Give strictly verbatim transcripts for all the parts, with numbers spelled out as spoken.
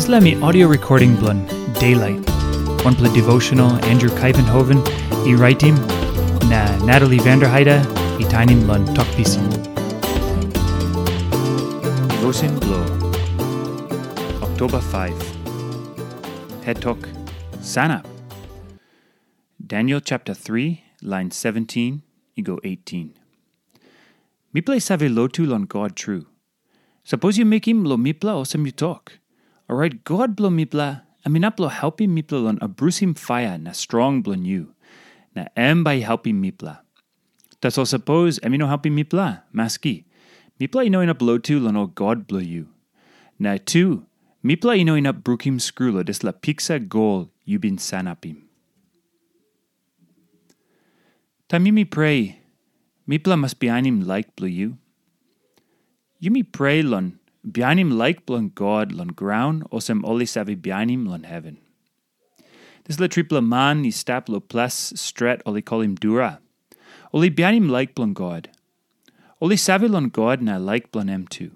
Dispela mi audio recording bilong Daylight, wanpela devotional Andrew Kaivenhoven i raitim, na Natalie Vanderheide i tainim long Tok Pisin. Devotion bilong Oktoba five. Het tok, Sanap. Daniel chapter three, line seventeen i go eighteen. Mipela i save lotu long God tru. Sapos yu mekim long mipela olsem yu tok, orait God bilong mipela em inap long helpim mipela long abrusim paia na strong bilong yu, na em bai i helpim mipela. Tasol sapos em i no helpim mipela, maski, mipela i no inap lotu long ol god bilong yu. Na tu, mipela i no inap brukim skru long dispela piksa gol yu bin sanapim. Taim yumi prea, mipela mas bihainim laik bilong yu. Yumi prea long bihainim laik bilong God long graun olsem ol i save bihainim long heven. Dispela tripela man i stap long ples stret ol i kolim Dura. Ol i bihainim laik bilong God. Ol i save long God na laik bilong em tu.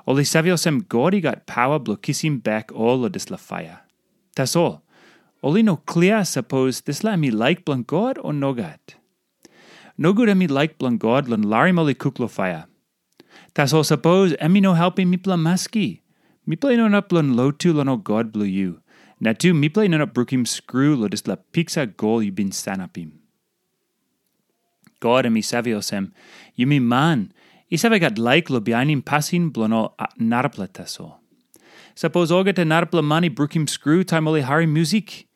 Ol i save olsem God i gat pawa bilong kisim bek ol long dispela paia. Tasol, ol i no klia sapos dispela em i laik bilong God o nogat. Nogut em i laik bilong God long larim ol i kuk long paia. Tasol sapos em i no helpim mipela maski, mipela i no inap long lotu long ol god bilong yu, na tu mipela i no inap brukim skru long dispela piksa gol yu bin sanapim. God em i save olsem, yumi man i save gat laik long bihainim pasin bilong ol a- narapela tasol. Sapos olgeta narapela man i brukim skru taim ol i harim musik,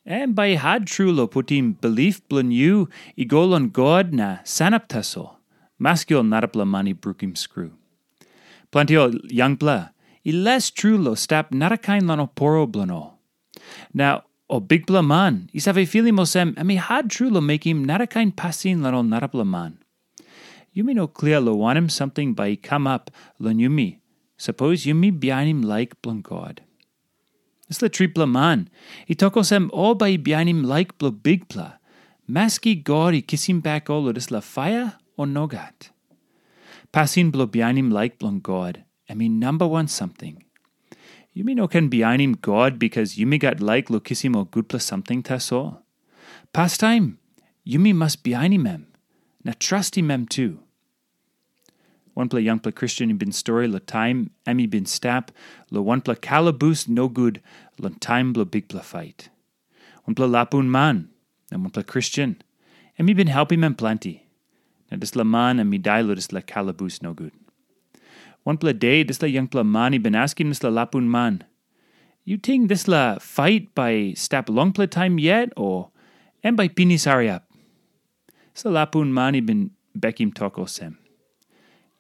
em bai i hat tru long putim bilip bilong yu i go long God na sanap tasol, maski ol narapela man i brukim skru. Planti ol yangpela i les tru long stap narakain long ol poro bilong ol. Na ol bikpela man i save filim olsem em i hat tru long mekim narakain pasin long ol narapela man. Yumi no klia long wanem samting bai i kamap long yumi, sapos yumi bihainim laik bilong God. Dispela tripela man i tok olsem ol bai i bihainim laik bilong Bikpela, maski God i kisim bek ol long dispela paia o nogat. Pasin bilong bihainim laik bilong God, em i namba wan samting. Yumi no ken bihainim God bikas yumi gat laik long kisim ol gutpela samting tasol. Pastaim, yumi mas bihainim em, na trastim em tu. Wanpela yangpela Kristen i bin stori long taim em i bin stap long wanpela kalabus nogut long taim bilong bikpela pait. Wanpela lapun man na wanpela Kristen, em i bin helpim em planti. Na dispela man em i dai long dispela kalabus nogut. Wanpela de dispela yangpela man i bin askim dispela lapun man, "Yu ting dispela pait bai stap longpela taim yet, o em bai pinis hariap?" Dispela lapun man i bin bekim tok olsem,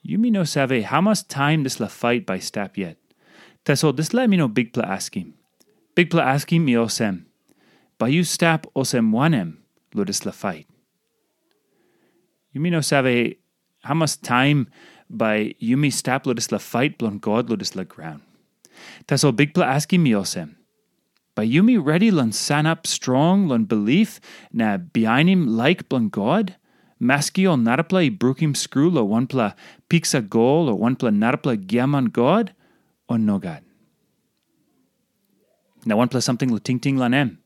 "Yumi no save hamas taim dispela pait bai stap yet. Tasol dispela em i no Bikpela askim. Bikpela askim i olsem, bai yu stap olsem wanem long dispela pait? Yumi no save hamas taim bai yumi stap long dispela pait bilong God long dispela graun. Tasol Bikpela askim mi olsem, bai yumi redi long sanap strong long bilip na bihainim laik bilong God, maski ol narapela i brukim skru long wanpela piksa gol o wanpela narapela giaman god, o nogat?" Na wanpela samting long tingting long em.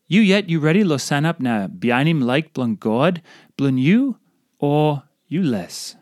Yu yet yu redi long sanap na bihainim laik bilong God bilong yu, o yu les?